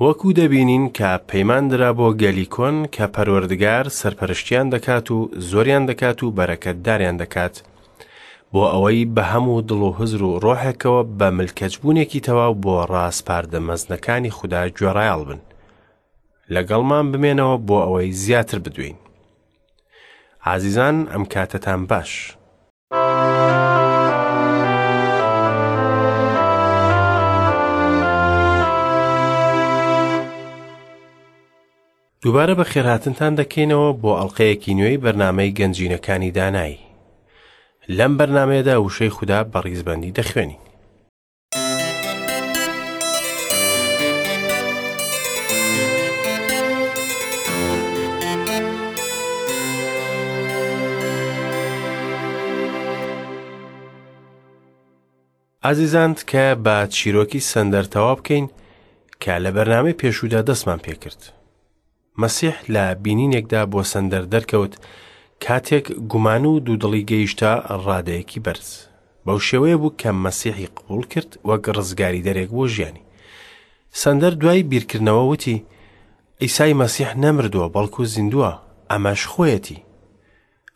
وەکو دەبینین کە پەیمان درا بۆ گەلی کۆن کە پەروەردگار سەرپەرشتیان دەکات و زۆریان دەکات و بەرەکەتداریان دەکات بۆ ئەوەی بە هەموو دڵ و هزر و ڕۆحێکەوە بە ملکەچبوونێکی تەواو بۆ ڕاسپاردە مەزنەکانی خودا گوێڕایەڵ بن. لەگەڵمان بمێنەوە بۆ ئەوەی زیاتر بدوێین. ئازیزان ئەم کاتەتان باش. دووبارە بەخێرهاتنتان دەکەینەوە بۆ ئەڵلقەیەکی نوێی بەرنامەی گەنجینەکانی دانایی. لەم بەرنمەیەدا وشەی خودا بە ڕیزبەندی دەخوێنین. ئازیزان تکایە با چیرۆکی سەندەر تەواو بکەین کە لە بەرنامەی پێشوودا دەستمان پێکرد. مەسیح لە بینینێکدا بۆ سەندەر دەرکەوت کاتێک گومان و دوودڵی گەیشتە ڕادەیەکی بەرز. بەو شێوەیە بوو کە مەسیحی قبوڵ کرد وەک ڕزگاریدەرێک بۆ ژیانی. سەندەر دوای بیرکردنەوە وتی، عیسای مەسیح نەمردووە بەڵکو زیندووە، ئەمەش خۆیەتی.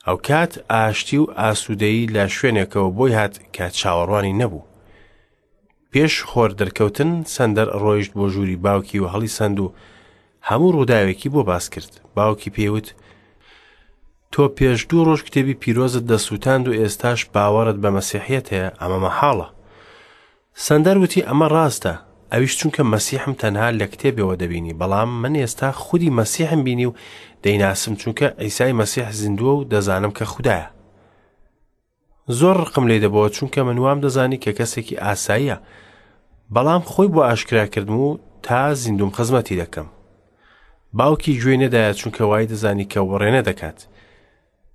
ئەوکات ئاشتی و ئاسوودەیی لە شوێنێکەوە بۆی هات کە چاوەڕوانی نەبوو. پێش خۆر دەرکەوتن سەندەر ڕۆیشت بۆ ژووری باوکی و هەڵیسەند و هەموو ڕووداوێکی بۆ باس کرد. باوکی پێی وت، تۆ پێش دوو ڕۆژ کتێبی پیرۆزت دەسووتاند و ئێستاش باوەڕت بە مەسیحیەت هەیە، ئەمە مەحاڵە. سەندەر وتی ئەمە ڕاستە، ئەویش چونکە مەسیحم تەنها لە کتێبەوە دەبینی، بەڵام من ئێستا خودی مەسیحم بینی و دەیناسم چونکە عیسای مەسیح زیندووە و دەزانم کە خودایە. زۆر ڕقم لێی دەبۆوە چونکە من وام دەزانی کە کەسێکی ئاساییە، بەڵام خۆی بۆ ئاشکرا کردم و تا زیندوم خزمەتی دەکەم. باوکی گوێی نەدایە چونکە وای دەزانی کە وڕێنە دەکات.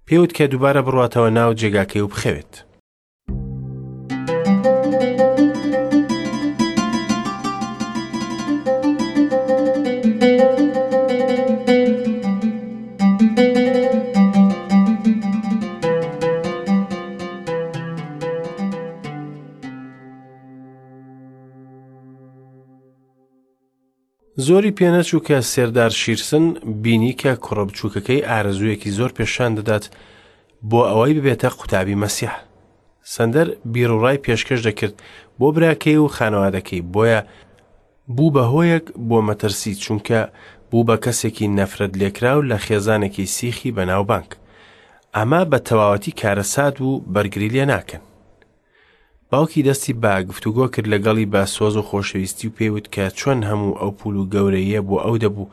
پێوت کە دووبارە بڕواتەوە ناو جێگاکەی و بخەوێت. زۆری پێنەچوو کە سێردار شیرسن بینی کە کوڕە بچووکەکەی ئارەزوویەکی زۆر پێشان دەدات بۆ ئەوەی ببێتە قوتابی مەسیح. سەندەر بیروڕای پێشکەش دەکرد بۆ براکەی و خانەوادەکەی بۆیە بوو بە هۆیەک بۆ مەترسی چونکە بوو بە کەسێکی نەفرەت لێکراو لە خێزانێکی سیخی بەناوبانگ. ئەمە بە تەواوەتی کارەسات بوو بەرگری لێ ناکەن. باوکی دەستی بە گفتوگۆ کرد لەگەڵی بە سۆز و خۆشەویستی و پێی وت کە چۆن هەموو ئەو پول و گەورەییە بۆ ئەو دەبوو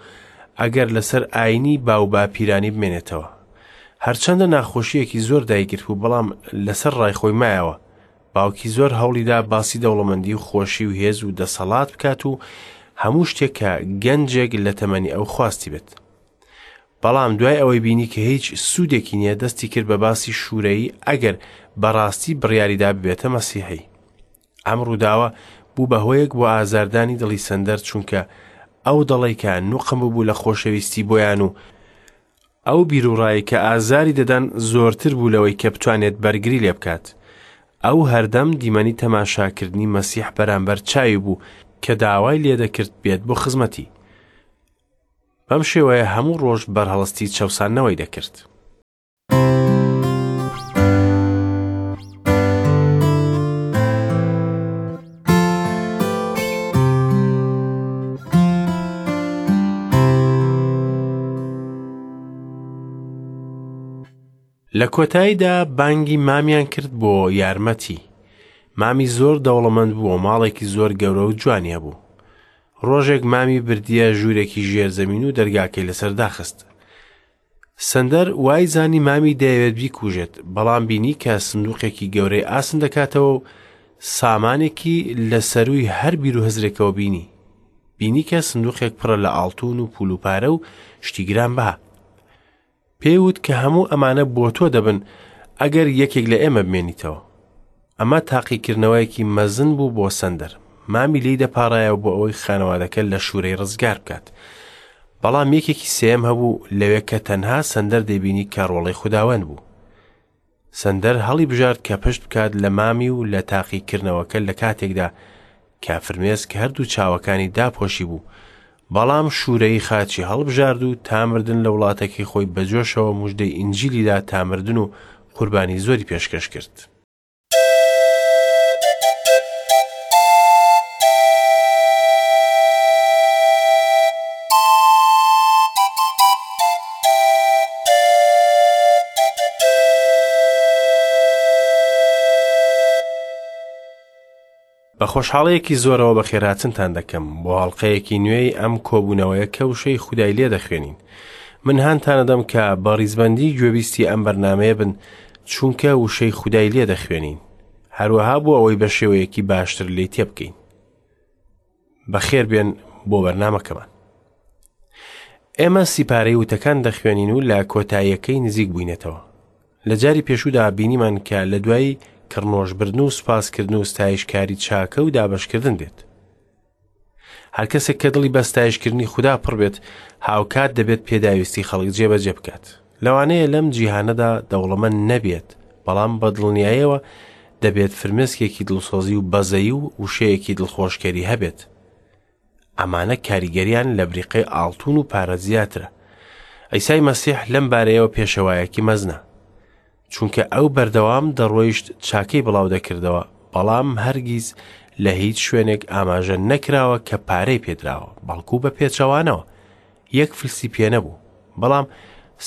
ئەگەر لەسەر ئاینی باو باپیرانی بمێنێتەوە. هەرچەندە ناخۆشییەکی زۆر دایگرت بوو بەڵام لەسەر ڕای خۆی مایەوە. باوکی زۆر هەوڵیدا باسی دەوڵەمەندی و خۆشی و هێز و دەسەڵات بکات و هەموو شتێک کە گەنجێک لە تەمەنی ئەو خواستی بێت. بەڵام دوای ئەوەی بینی کە هیچ سوودێکی نییە دەستی کرد بە باسی شوورەیی ئەگەر بەڕاستی بڕیاریدا ببێتە مەسیحی. ئەم ڕووداوە بوو بە هۆیەک بۆ ئازاردانی دڵی سەندەر چونکە ئەو دەڵی کە نوقم ببوو لە خۆشەویستی بۆیان و ئەو بیروڕای کە ئازاری دەدان زۆرتر بوو لەوەی کە بتوانێت بەرگری لێ بکات. ئەو هەردەم دیمەنی تەماشاکردنی مەسیح بەرامبەر چاوی بوو کە داوای لێدەکرد بێت بۆ خزمەتی. بەم شێوەیە هەموو ڕۆژ بەرهەڵستی چەوساندنەوەی دەکرد. لە کۆتاییدا بانگی مامیان کرد بۆ یارمەتی. مامی زۆر دەوڵەمەند بوو و ماڵێکی زۆر گەورە و جوانی هەبوو. ڕۆژێک مامی بردیە ژوورێکی ژێرزەمین و دەرگاکەی لەسەر داخست. سەندەر وای زانی مامی دەیەوێت بیکوژێت، بەڵام بینی کە سندوقێکی گەورەی ئاسن دەکاتەوە و سامانێکی لە سەرووی هەر بیر و هزرێکەوە بینی. بینی کە سندوقێک پڕە لە ئاڵتون و پول و پارە و شتی گرانبەها. پێی وت کە هەموو ئەمانە بۆ تۆ دەبن ئەگەر یەکێک لە ئێمە بمێنیتەوە. ئەمە تاقیکردنەوەیەکی مەزن بوو بۆ سەندەر. مامی لێی دەپاڕایەوە بۆ ئەوەی خانەوادەکە لە شوورەی ڕزگار بکات. بەڵام یەکێکی سێیەم هەبوو لەوێ کە تەنها سەندەر دەیبینی کە ڕۆڵەی خوداوەند بوو. سەندەر هەڵی بژارد کە پشت بکات لە مامی و لە تاقیکردنەوەکە لە کاتێکدا کە فرمێسک هەردوو چاوەکانی داپۆشی بوو. بەڵام شوورەیی خاچی هەڵبژارد و تا مردن لە وڵاتەکەی خۆی بە جۆشەوە موژدەی ئینجیلی دا تا مردن و قوربانی زۆری پێشکەش کرد. بە خۆشحاڵیەکی زۆرەوە بەخێرهاتنتان دەکەم بۆ ئەڵقەیەکی نوێی ئەم کۆبوونەوەیە کە وشەی خودای لێ دەخوێنین. من هانتانەدەم کە بە ڕیزبەندی گوێبیستی ئەم بەرنامەیە بن چونکە وشەی خودای لێ دەخوێنین. هەروەها بۆ ئەوەی بە شێوەیەکی باشتر لێی تێبگەین. بەخێر بێن بۆ بەرنامەکەمان. ئێمە سیپارەی وتەکان دەخوێنین و لە کۆتاییەکەی نزیک بووینەتەوە. لە جاری پێشوودا بینیمان کە لە دوای کڕنۆشبردن و سوپاسکردن و ستایشکاری چاکە و دابەشکردن دێت. هەر کەسێک کە دڵی بە ستایشکردنی خودا پڕ بێت، هاوکات دەبێت پێداویستی خەڵک جێبەجێ بکات. لەوانەیە لەم جیهانەدا دەوڵەمەند نەبێت، بەڵام بە دڵنیایەوە دەبێت فرمێسکێکی دڵسۆزی و بەزەیی و وشەیەکی دڵخۆشکەری هەبێت. ئەمانە کاریگەریان لە بریقەی ئاڵتون و پارە زیاترە. عیسای مەسیح لەم بارەیەوە پێشەوایەکی مەزنە. چونکە ئەو بەردەوام دەڕۆیشت چاکەی بڵاو دەکردەوە، بەڵام هەرگیز لە هیچ شوێنێک ئاماژە نەکراوە کە پارەی پێدراوە، بەڵکو بە پێچەوانەوە یەک فلسی پێ نەبوو. بەڵام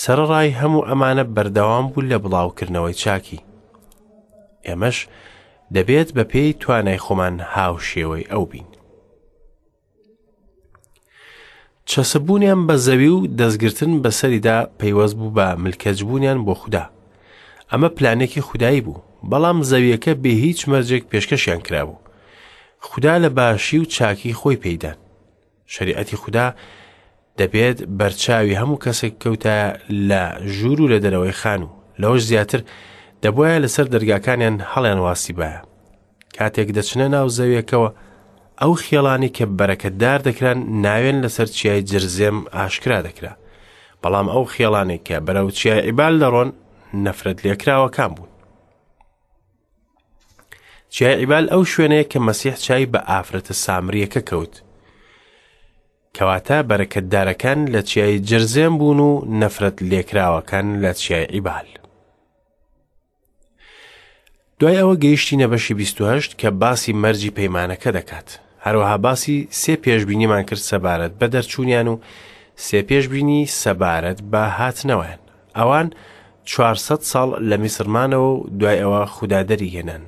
سەرەڕای هەموو ئەمانە بەردەوام بوو لە بڵاوکردنەوەی چاکی. ئێمەش دەبێت بە پێی توانای خۆمان هاوشێوەی ئەو بین. چەسپبوونیان بە زەوی و دەستگرتن بەسەریدا پەیوەست بوو بە ملکەچبوونیان بۆ خودا. ئەمە پلانێکی خودایی بوو، بەڵام زەویەکە بێ هیچ مەرجێک پێشکەشیان کرابوو. خودا لە باشی و چاکی خۆی پێیدان. شەریعەتی خودا دەبێت بەرچاوی هەموو کەسێک کەوتایە لە ژوور و لە دەرەوەی خانوو. لەوەش زیاتر دەبوایە لەسەر دەرگاکانیان هەڵیان واسیبایە. کاتێک دەچنە ناو زەویەکەوە، ئەو خێڵانی کە بەرەکەتدار دەکران ناوێن لەسەر چیای جرزێم ئاشکرا دەکرا. بەڵام ئەو خێڵانەی کە بەرەو چیای عیبال دەڕۆن نەفرەت لێکراوەکان بوون. چیای عیبال ئەو شوێنەیە کە مەسیح چای بە ئافرەتە سامریەکە کەوت. کەواتە بەرەکەتدارەکان لە چیای جرزێم بوون و نەفرەت لێکراوەکان لە چیای عیبال. دوای ئەوە گەیشتینە بەشی 28 کە باسی مەرجی پەیمانەکە دەکات. هەروەها باسی سێ پێشبینیمان کرد سەبارەت بە دەرچوونیان و سێ پێشبینی سەبارەت بە هاتنەوەیان. ئەوان 400 ساڵ لە میسر مانەوە و دوای ئەوە خودا دەری هێنان.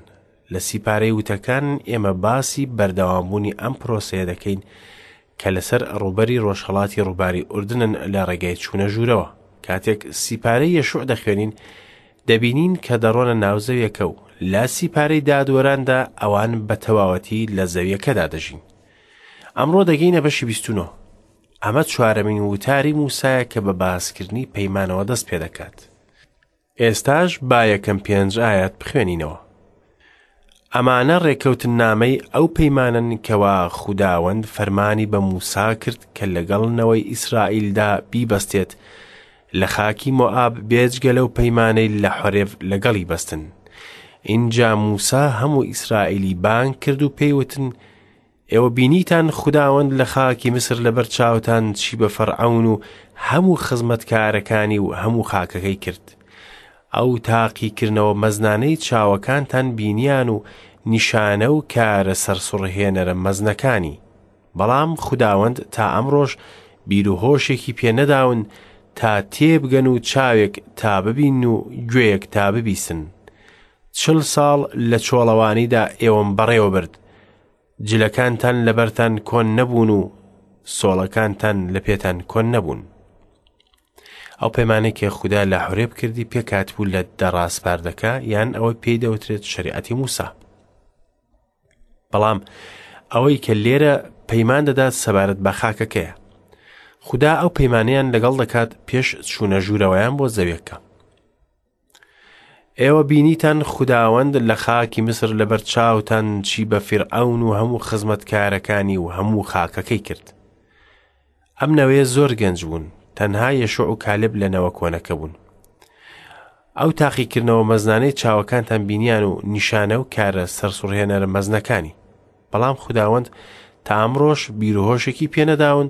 لە سیپارەی وتەکان ئێمە باسی بەردەوامبوونی ئەم پرۆسەیە دەکەین کە لەسەر ڕووبەری ڕۆژهەڵاتی ڕووباری ئوردنن لە ڕێگای چوونە ژوورەوە. کاتێک سیپارەی یەشوع دەخوێنین، دەبینین کە دەڕۆنە ناو زەویەکە و لە سیپارەی دادوەراندا ئەوان بە تەواوەتی لە زەویەکەدا دەژین. ئەمڕۆ دەگەینە بەشی 29. ئەمە چوارەمین وتاری موسایە کە بە باسکردنی پەیمانەوە دەست پێدەکات. ئێستاش با یەکەم پێنج ئایەت بخوێنینەوە. ئەمانە ڕێکەوتننامەی ئەو پەیمانەن کەوا خوداوەند فەرمانی بە موسا کرد کە لەگەڵ نەوەی ئیسرائیلدا بیبەستێت لە خاکی مۆئاب بێجگە لەو پەیمانەی لە حۆرێڤ لەگەڵی بەستن. ئینجا موسا هەموو ئیسرائیلی بانگ کرد و پێی وتن، ئێوە بینیتان خوداوەند لە خاکی میسر لەبەر چاوتان چی بە فەرعەون و هەموو خزمەتکارەکانی و هەموو خاکەکەی کرد. ئەو تاقیکردنەوە مەزنانەی چاوەکانتان بینیان و نیشانە و کارە سەرسوڕهێنەرە مەزنەکانی. بەڵام خوداوەند تا ئەمڕۆش بیر و هۆشێکی پێ نەداون تا تێبگەن و چاوێک تا ببین و گوێیەک تا ببیسن. چل ساڵ لە چۆڵەوانیدا ئێوەم بەڕێوە برد. جلەکانتان لەبەرتان کۆن نەبوون و سۆڵەکانتان لە پێتان کۆن نەبوون. ئەو پەیمانەی کە خودا لە حورێب کردی پێکهاتبوو لە دە ڕاسپاردەکە یان ئەوەی پێی دەوترێت شەریعەتی موسا. بەڵام ئەوەی کە لێرە پەیمان دەدات سەبارەت بە خاکەکەیە. خودا ئەو پەیمانەیان لەگەڵ دەکات پێش چوونە ژوورەوەیان بۆ زەویەکە. ئێوە بینیتان خوداوەند لە خاکی میسر لەبەر چاوتان چی بە فیرعەون و هەموو خزمەتکارەکانی و هەموو خاکەکەی کرد. ئەم نەوەیە زۆر گەنج بوون، تەنها یەشوع و کالب لە نەوە کۆنەکە بوون. ئەو تاقیکردنەوە مەزنانەی چاوەکانتان بینیان و نیشانە و کارە سەرسوڕهێنەرە مەزنەکانی. بەڵام خوداوەند تا ئەمڕۆش بیروهۆشێکی پێنەداون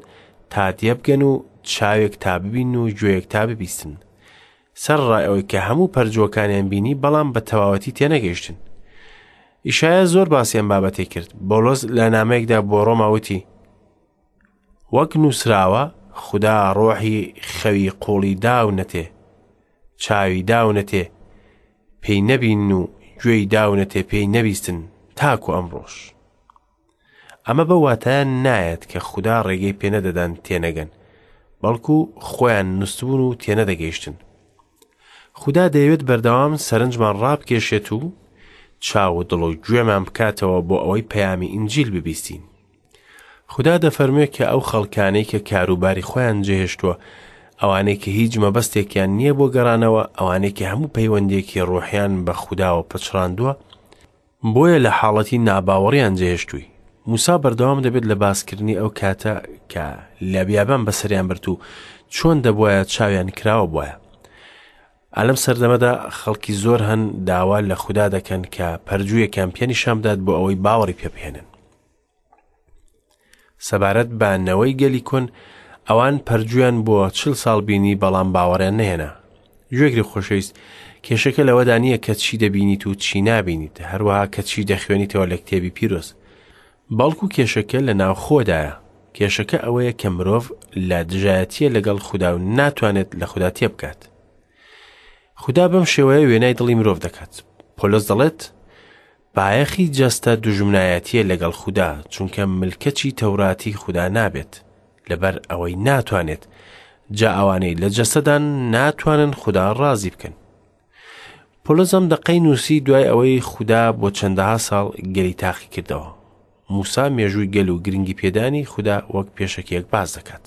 تا تێبگەن و چاوێک تا ببینن و گوێیەک تا ببیستن. سەرەڕای ئەوەی کە هەموو پەرجووەکانیان بینی بەڵام بە تەواوەتی تێنەگەیشتن. ئیشایا زۆر باسی ئەم بابەتەی کرد. بۆلۆس لە نامەیەکدا بۆ ڕۆما وتی، وەک نووسراوە، خودا ڕۆحی خەوی قوڵی داونەتێ، چاوی داونەتێ پێی نەبینن و گوێی داونەتێ پێی نەبیستن تاکو ئەمڕۆش. ئەمە بەو واتایە نایەت کە خودا ڕێگەی پێنەدەدان تێنەگەن، بەڵکو خۆیان نوستبوون و تێنەدەگەیشتن. خودا دەیەوێت بەردەوام سەرنجمان ڕابکێشێت و چاو و دڵ و گوێمان بکاتەوە بۆ ئەوەی پەیامی ئینجیل ببیستین. خودا دەفەرموێ کە ئەو خەڵکانەی کە کاروباری خۆیان جێهێشتووە، ئەوانەی کە هیچ مەبەستێکیان نییە بۆ گەڕانەوە، ئەوانەی کە هەموو پەیوەندییەکی ڕۆحیان بە خوداوە پچڕاندووە، بۆیە لە حاڵەتی ناباوەڕیان جێهێشتووی. موسا بەردەوام دەبێت لە باسکردنی ئەو کاتە کە لە بیابان بەسەریان برد و چۆن دەبوایە چاویان کراوە بوایە. ئالەم سەردەمەدا خەڵکی زۆر هەن داوا لە خودا دەکەن کە پەرجوویەکیان پێ نیشان بدات بۆ ئەوەی باوەڕی پێ بهێنن. سەبارەت بە نەوەی گەلی کۆن، ئەوان پەرجویان بۆ چل ساڵ بینی بەڵام باوەڕیان نەهێنا. گوێگری خۆشەویست، کێشەکە لەوەدا نییە کە چی دەبینیت و چی نابینیت، هەروەها کە چی دەخوێنیتەوە لە کتێبی پیرۆز. بەڵکو کێشەکە لە ناوخۆدایە. کێشەکە ئەوەیە کە مرۆڤ لە دژایەتییە لەگەڵ خودا و ناتوانێت لە خودا تێبگات. خودا بەم شێوەیە وێنای دڵی مرۆڤ دەکات. پۆلۆس دەڵێت، بایەخی جەستە دوژمنایەتییە لەگەڵ خودا، چونکە ملکەچی تەوراتی خودا نابێت، لەبەر ئەوەی ناتوانێت، جا ئەوانەی لە جەستەدان ناتوانن خودا ڕازی بکەن. پۆلۆس ئەم دەقەی نووسی دوای ئەوەی خودا بۆ چەندەها ساڵ گەلی تاقی کردەوە. موسا مێژووی گەل و گرنگی پێدانی خودا وەک پێشەکیەک باس دەکات.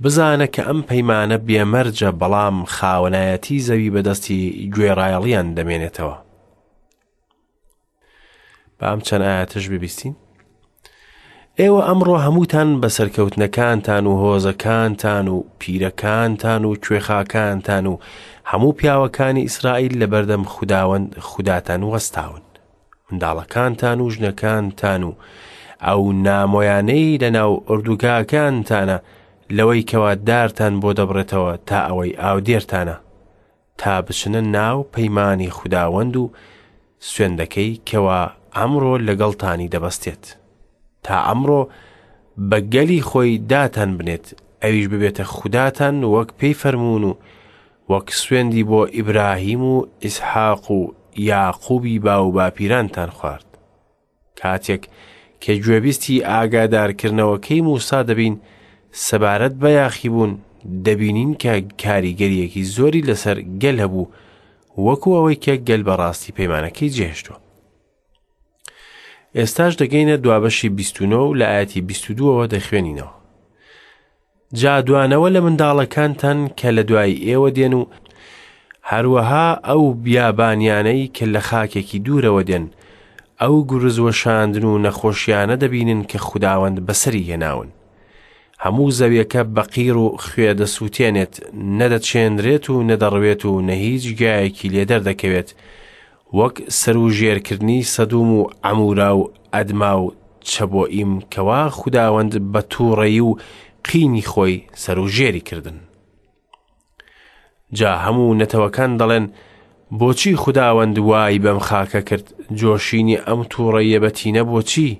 بزانە کە ئەم پەیمانە بێمەرجە بەڵام خاوەنایەتی زەوی بەدەستی گوێڕایەڵیان دەمێنێتەوە. با ئەم چەند ئاەتەش ببیستین. ئێوە ئەمڕۆ هەمووتان بە سەرکەوتنەکانتان و هۆزەکانتان و پیرەکانتان و کوێخاکانتان و هەموو پیاوەکانی ئیسرائیل لە بەردەم خوداوەند خوداتان وەستاون. منداڵەکانتان و ژنەکانتان و ئەو نامۆیانەی لەناو ئۆردوگاکانتانە لەوەی کەوا دارتان بۆ دەبڕێتەوە تا ئەوەی ئاودێرتانە تا بچنە ناو پەیمانی خوداوەند و سوێندەکەی کەوا ئەمڕۆ لەگەڵتانی دەبەستێت تا ئەمڕۆ بە گەلی خۆی داتان بنێت ئەویش ببێتە خوداتان وەک پێی فەرموون و وەک سوێندی بۆ ئیبراهیم و ئیسحاق و یاقوبی باوباپیرانتان خوارد. کاتێک کە گوێبیستی ئاگادارکردنەوەکەی موسا دەبین سەبارەت بە یاخیبوون، دەبینین کە کاریگەرییەکی زۆری لەسەر گەل هەبوو، وەکو ئەوەی کە گەل بەڕاستی پەیمانەکەی جێهێشتووە. ئێستاش دەگەینە دوابەشی 29 و لە ئاەتی 22ەوە دەخوێنینەوە. جا دوانەوە لە منداڵەکانتان کە لە دوای ئێوە دێن و هەروەها ئەو بیابانیانەی کە لە خاکێکی دوورەوە دێن، ئەو گورز وەشاندن و نەخۆشیانە دەبینن کە خوداوەند بەسەری هێناون. هەموو زەویەکە بە قیر و خوێ دەسووتێنێت، نە دەچێنرێت و نە دەڕوێت و نە هیچ گیایەکی لێ دەردەکەوێت، وەک سەروژێرکردنی سەدوم و عەمورا و ئەدما و چەبۆئیم کەوا خوداوەند بە تووڕەیی و قینی خۆی سەروژێری کردن. جا هەموو نەتەوەکان دەڵێن بۆچی خوداوەند وای بەم خاکە کرد جۆشینی ئەم تووڕەیە بەتینە بۆچی؟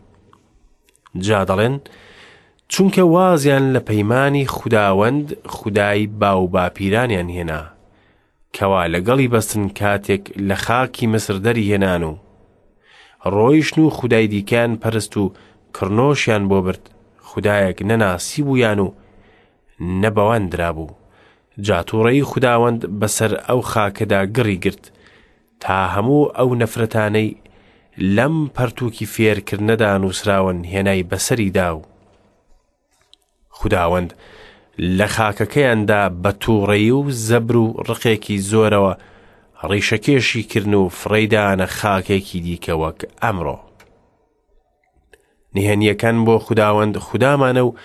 جا دەڵێن چونکە وازیان لە پەیمانی خوداوەند خودای باوباپیرانیان هێنا کەوا لەگەڵی بەستن کاتێک لە خاکی میسر دەریهێنان و ڕۆیشتن و خودای دیکەیان پەرست و کڕنۆشیان بۆ برد، خودایەک نەناسیبوویان و نە بەوان درابوو. جا تووڕەیی خوداوەند بەسەر ئەو خاکەدا گڕی گرت، تا هەموو ئەو نەفرەتانەی لەم پەرتووکی فێرکردنەدا نووسراون هێنای بەسەریدا و خوداوەند لە خاکەکەیاندا بە تووڕەیی و زەبر و ڕقێکی زۆرەوە ڕیشەکێشی کردن و فڕێیدانە خاکێکی دیکە وەک ئەمڕۆ. نهێنییەکان بۆ خوداوەند خودامانە و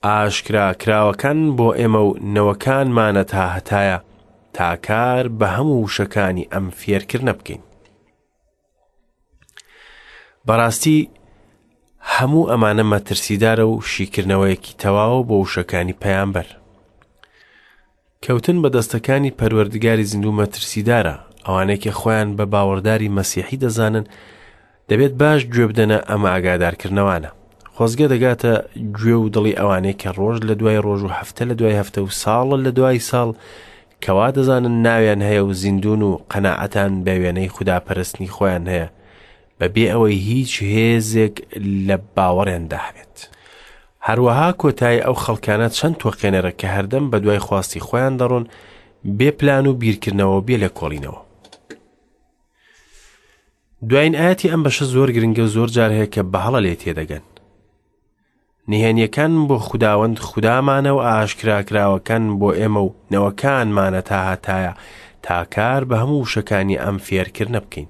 ئاشکرا کراوەکان بۆ ئێمە و نەوەکانمانە تا هەتایە تا کار بە هەموو وشەکانی ئەم فێرکردنە بکەین. بەڕاستی هەموو ئەمانە مەترسیدارە و شیکردنەوەیەکی تەواوە بۆ وشەکانی پەیامبەر. کەوتن بە دەستەکانی پەروەردگاری زیندوو مەترسیدارە، ئەوانەی کە خۆیان بە باوەڕداری مەسیحی دەزانن دەبێت باش گوێ بدەنە ئەم ئاگادارکردنەوانە. خۆزگە دەگاتە گوێ و دڵی ئەوانەی کە ڕۆژ لە دوای ڕۆژ و هەفتە لە دوای هەفتە و ساڵ لە دوای ساڵ کەوا دەزانن ناویان هەیە و زیندوون و قەناعەتان بە وێنەی خوداپەرستنی خۆیان هەیە بەبێ ئەوەی هیچ هێزێک لە باوەڕیاندا هەبێت. هەروەها کۆتایی ئەو خەڵکانە چەند تۆقێنەرە کە هەردەم بەدوای خواستی خۆیان دەڕۆن بێ پلان و بیرکردنەوە و بێ لێکۆڵینەوە. دوایین ئاەتی ئەم بەشە زۆر گرنگە و زۆر جار هەیە کە بە هەڵە لێ تێدەگەن. نهێنیەکان بۆ خوداوەند خودامانە و ئاشکراکراوەکان بۆ ئێمە و نەوەکانمانە تا هەتایە تا کار بە هەموو وشەکانی ئەم فێرکردنە بکەین.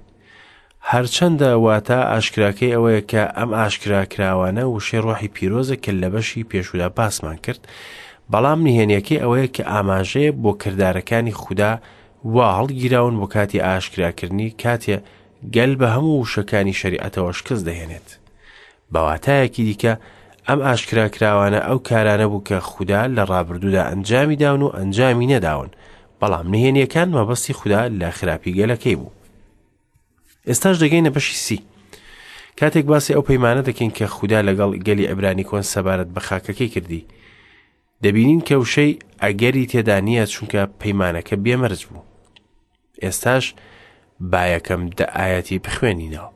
هەرچەندە واتا ئاشکراکەی ئەوەیە کە ئەم ئاشکراکراوانە وشەی ڕۆحی پیرۆزە کە لە بەشی پێشودا باسمان کرد، بەڵام نهێنیەکەی ئەوەیە کە ئاماژەیە بۆ کردارەکانی خودا وا هەڵگیراون بۆ کاتی ئاشکراکردنی کاتێ گەل بە هەموو وشەکانی شەریعەتەوە شکست دەهێنێت. بە واتایەکی دیکە ئەم ئاشکراکراوانە ئەو کارانە بوو کە خودا لە ڕابردوودا ئەنجامی داون و ئەنجامی نەداون، بەڵام نهێنیەکان مەبەستی خودا لە خراپی گەلەکەی بوو. ئێستاش دەگەینە بەشی سی. کاتێک باسی ئەو پەیمانە دەکەین کە خودا لەگەڵ گەلی عیبرانی کۆن سەبارەت بە خاکەکەی کردی، دەبینین کە وشەی ئەگەری تێدا نییە چونکە پەیمانەکە بێمەرج بوو. ئێستاش با یەکەم دە ئایەتی بخوێنینەوە.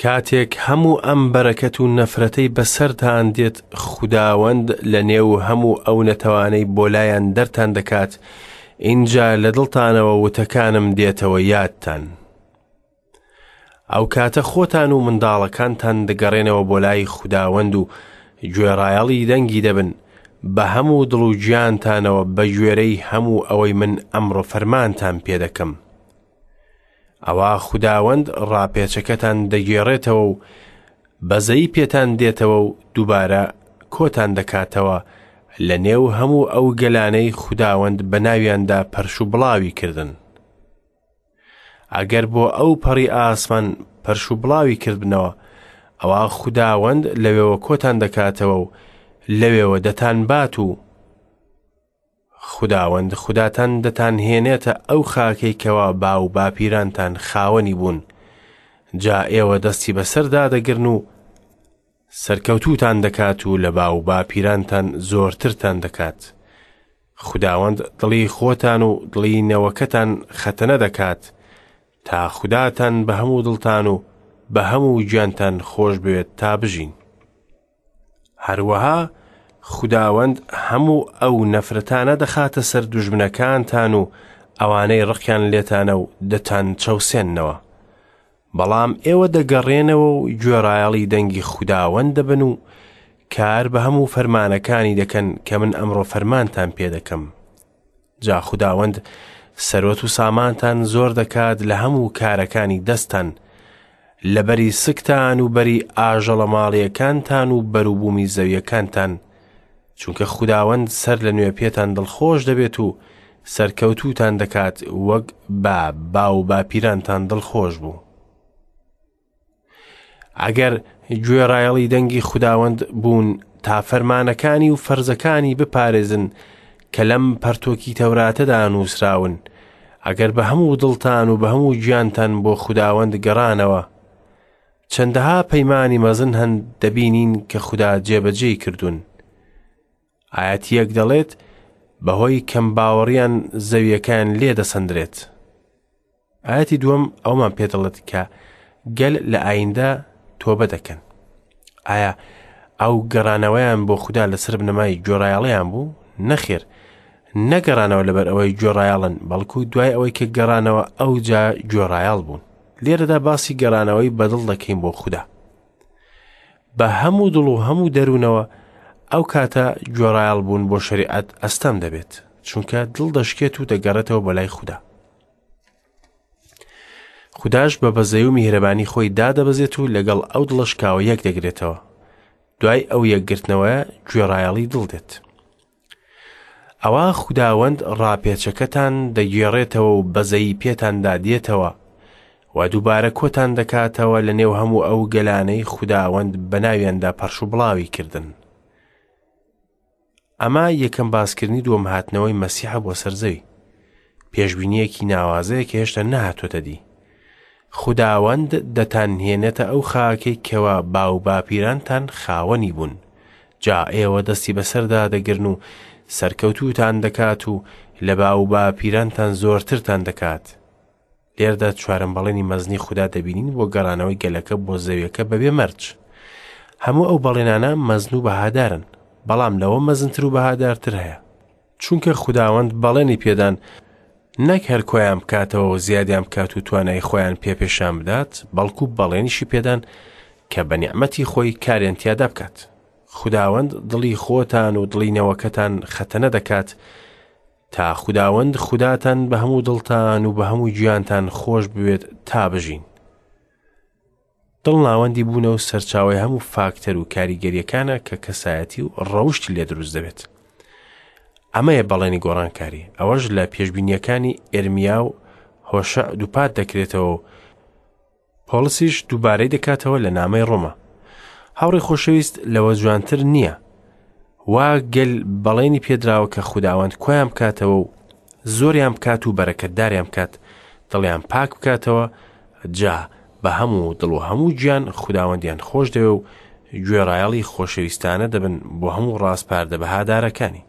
کاتێک هەموو ئەم بەرەکەت و نەفرەتەی بەسەرتان دێت خوداوەند لە نێو هەموو ئەو نەتەوانەی بۆ لایان دەرتان دەکات ئینجا لە دڵتانەوە وتەکانم دێتەوە یادتان ئەو کاتە خۆتان و منداڵەکانتان دەگەڕێنەوە بۆ لای خوداوەند و گوێڕایەڵی دەنگی دەبن بە هەموو دڵ و گیانتانەوە بە گوێرەی هەموو ئەوەی من ئەمڕۆ فەرمانتان پێ دەکەم ئەوا خوداوەند ڕاپێچەکەتان دەگێڕێتەوە و بەزەیی پێتان دێتەوە و دووبارە کۆتان دەکاتەوە لە نێو هەموو ئەو گەلانەی خوداوەند بە ناویاندا پەرش و بڵاوی کردن. ئەگەر بۆ ئەو پەڕی ئاسمان پەرش و بڵاوی کردبنەوە، ئەوا خوداوەند لەوێوە کۆتان دەکاتەوە و لەوێوە دەتانبات و خوداوەند خوداتان دەتانهێنێتە ئەو خاکەی کەوا باو باپیرانتان خاوەنی بوون، جا ئێوە دەستی بەسەردا دەگرن و سەرکەوتووتان دەکات و لە باو باپیرانتان زۆرترتان دەکات. خوداوەند دڵی خۆتان و دڵی نەوەکەتان خەتەنە دەکات، تا خوداتان بە هەموو دڵتان و بە هەموو گیانتان خۆش بوێت تا بژین. هەروەها خوداوەند هەموو ئەو نەفرەتانە دەخاتە سەر دوژمنەکانتان و ئەوانەی ڕقیان لێتانە و دەتان چەوسێننەوە. بەڵام ئێوە دەگەڕێنەوە و گوێڕایەڵی دەنگی خوداوەند دەبن و کار بە هەموو فەرمانەکانی دەکەن کە من ئەمڕۆ فەرمانتان پێ دەکەم. جا خوداوەند سەروەت و سامانتان زۆر دەکات لە هەموو کارەکانی دەستتان، لە بەری سکتان و بەری ئاژەڵە ماڵیەکانتان و بەروبوومی زەویەکانتان، چونکە خوداوەند سەر لە نوێ پێتان دڵخۆش دەبێت و سەرکەوتووتان دەکات وەک بە باو باپیرانتان دڵخۆش بوو. ئەگەر گوێڕایەڵی دەنگی خوداوەند بوون تا فەرمانەکانی و فەرزەکانی بپارێزن کە لەم پەرتۆکی تەوراتەدا نووسراون، ئەگەر بە هەموو دڵتان و بە هەموو گیانتان بۆ خوداوەند گەڕانەوە، چەندەها پەیمانی مەزن هەن دەبینین کە خودا جێبەجێی کردوون. ئایەتیەک دەڵێت بەهۆی کەم باوەڕیان زەویەکەیان لێ دەسەندرێت. ئایەتی دووەم ئەومان پێ دەڵێت کە گەل لە ئایندە تۆبە دەکەن. ئایا ئەو گەڕانەوەیان بۆ خودا لەسەر بنەمای گوێڕایەڵیان بوو؟ نەخێر، نەگەڕانەوە لەبەر ئەوەی گوێڕایەڵن، بەڵکو دوای ئەوەی کە گەڕانەوە ئەوجا گوێڕایەڵ بوون. لێرەدا باسی گەڕانەوەی بەدڵ دەکەین بۆ خودا. بە هەموو دڵ و هەموو دەروونەوە ئەو کاتە گوێڕایەڵ بوون بۆ شەریعەت ئەستەم دەبێت، چونکە دڵ دەشکێت و دەگەڕێتەوە بۆ لای خودا. خوداش بە بەزەی و میهرەبانی خۆی دادەبەزێت و لەگەڵ ئەو دڵە شکاوە یەک دەگرێتەوە. دوای ئەو یەکگرتنەوەیە گوێڕایەڵی دڵ دێت. ئەوا خوداوەند ڕاپێچەکەتان دەگێڕێتەوە و بەزەیی پێتاندا دێتەوە. و دووبارە کۆتان دەکاتەوە لە نێو هەموو ئەو گەلانەی خوداوەند بە ناویاندا پەرش و بڵاوی کردن. ئەمە یەکەم باسکردنی دووەم هاتنەوەی مەسیحە بۆ سەر زەوی. پێشبینییەکی ناوازەیە کە هێشتا نەهاتۆتە دی. خوداوەند دەتانهێنێتە ئەو خاکەی کەوا باوباپیرانتان خاوەنی بوون. جا ئێوە دەستی بەسەردا دەگرن و سەرکەوتووتان دەکات و لە باوباپیرانتان زۆرترتان دەکات. لێرەدا چوارەم بەڵێنی مەزنی خودا دەبینین بۆ گەڕانەوەی گەلەکە بۆ زەویەکە بەبێ مەرج. هەموو ئەو بەڵێنانە مەزن و بەهادارن، بەڵام لەوە مەزنتر و بەهادارتر هەیە. چونکە خوداوەند بەڵێنی پێدان نەک هەر کۆیان بکاتەوە و زیادیان بکات و توانای خۆیان پێ پێشان بدات، بەڵکو بەڵێنیشی پێدان کە بە نیعمەتی خۆی کاریان تیادا بکات. خوداوەند دڵی خۆتان و دڵی نەوەکەتان خەتەنە دەکات تا خوداوەند خوداتان بە هەموو دڵتان و بە هەموو گیانتان خۆش بوێت تا بژین. دڵ ناوەندی بوونە و سەرچاوەی هەموو فاکتەر و کاریگەریەکانە کە کەسایەتی و ڕەوشتی لێ دروست دەبێت. ئەمەیە بەڵێنی گۆڕانکاری، ئەوەش لە پێشبینیەکانی ئێرمیا و هۆشع دووپات دەکرێتەوە و پۆڵسیش دووبارەی دەکاتەوە لە نامەی ڕۆما. هاوڕێ خۆشەویست لەوە جوانتر نییە وا گەل بەڵێنی پێدراوە کە خوداوەند کۆیان بکاتەوە و زۆریان بکات و بەرەکەتداریان بکات دڵیان پاک بکاتەوە جا بە هەموو دڵ و هەموو گیان خوداوەندیان خۆش دەوێ و گوێڕایەڵی خۆشەویستانە دەبن بۆ هەموو ڕاسپاردە بەهادارەکانی.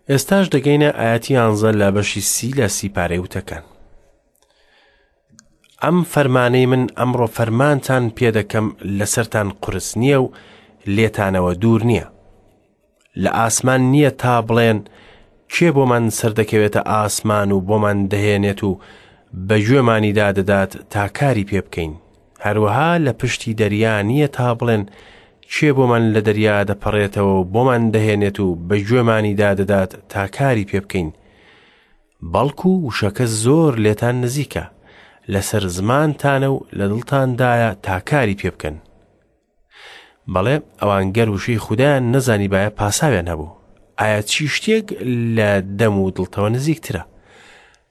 ئێستاش دەگەینە ئاەتی یانزە لە بەشی سی لە سیپارەی وتەکان. ئەم فەرمانەی من ئەمڕۆ فەرمانتان پێدەکەم لەسەرتان قورس نییە و لێتانەوە دوور نییە. لە ئاسمان نییە تا بڵێن کێ بۆمان سەردەکەوێتە ئاسمان و بۆمان دەهێنێت و بە گوێمانیدا دەدات تا کاری پێ بکەین. هەروەها لە پشتی دەریا نییە تا بڵێن کێ بۆمان لە دەریا دەپەڕێتەوە و بۆمان دەهێنێت و بە گوێمانیدا دەدات تا کاری پێ بکەین. بەڵکو وشەکە زۆر لێتان نزیکە، لەسەر زمانتانە و لە دڵتاندایە تا کاری پێ بکەن. بەڵێ ئەوان گەر وشەی خودایان نەزانیبایە پاساویان هەبوو. ئایا چی شتێک لە دەم و دڵتەوە نزیکترە؟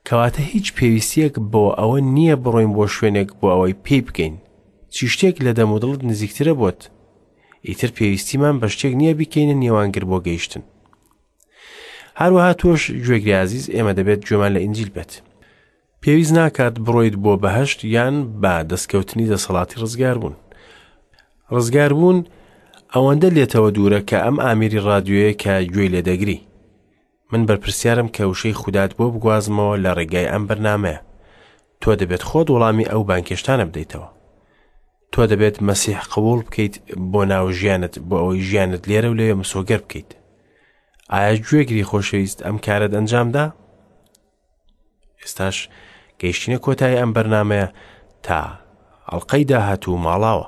کەواتە هیچ پێویستیەک بۆ ئەوە نییە بڕۆین بۆ شوێنێک بۆ ئەوەی پێی بگەین. چی شتێک لە دەم و دڵت نزیکترە بۆت؟ ئیتر پێویستیمان بە شتێک نییە بیکەینە نێوانگر بۆ گەیشتن. هەروەها تۆش گوێگری ئازیز ئێمە دەبێت گوێمان لە ئینجیل بێت. پێویست ناکات بڕۆیت بۆ بەهەشت یان بە دەستکەوتنی دەسەڵاتی ڕزگاربوون. ڕزگاربوون ئەوەندە لێتەوە دوورە کە ئەم ئامیری ڕادیۆیە کە گوێی لێدەگری. من بەرپرسیارم کە وشەی خودات بۆ بگوازمەوە لە ڕێگای ئەم بەرنامەیە. تۆ دەبێت خۆت وەڵامی ئەو بانگهێشتانە بدەیتەوە. تۆ دەبێت مەسیح قبوڵ بکەیت بۆ ناو ژیانت بۆ ئەوەی ژیانت لێرە و لەوێ مسۆگەر بکەیت. ئایا گوێگری خۆشەویست ئەم کارەت ئەنجامدا؟ ئێستاش گەیشتینە کۆتایی ئەم بەرنمەیە تا ئەڵلقەی داهاتوو ماڵاوە.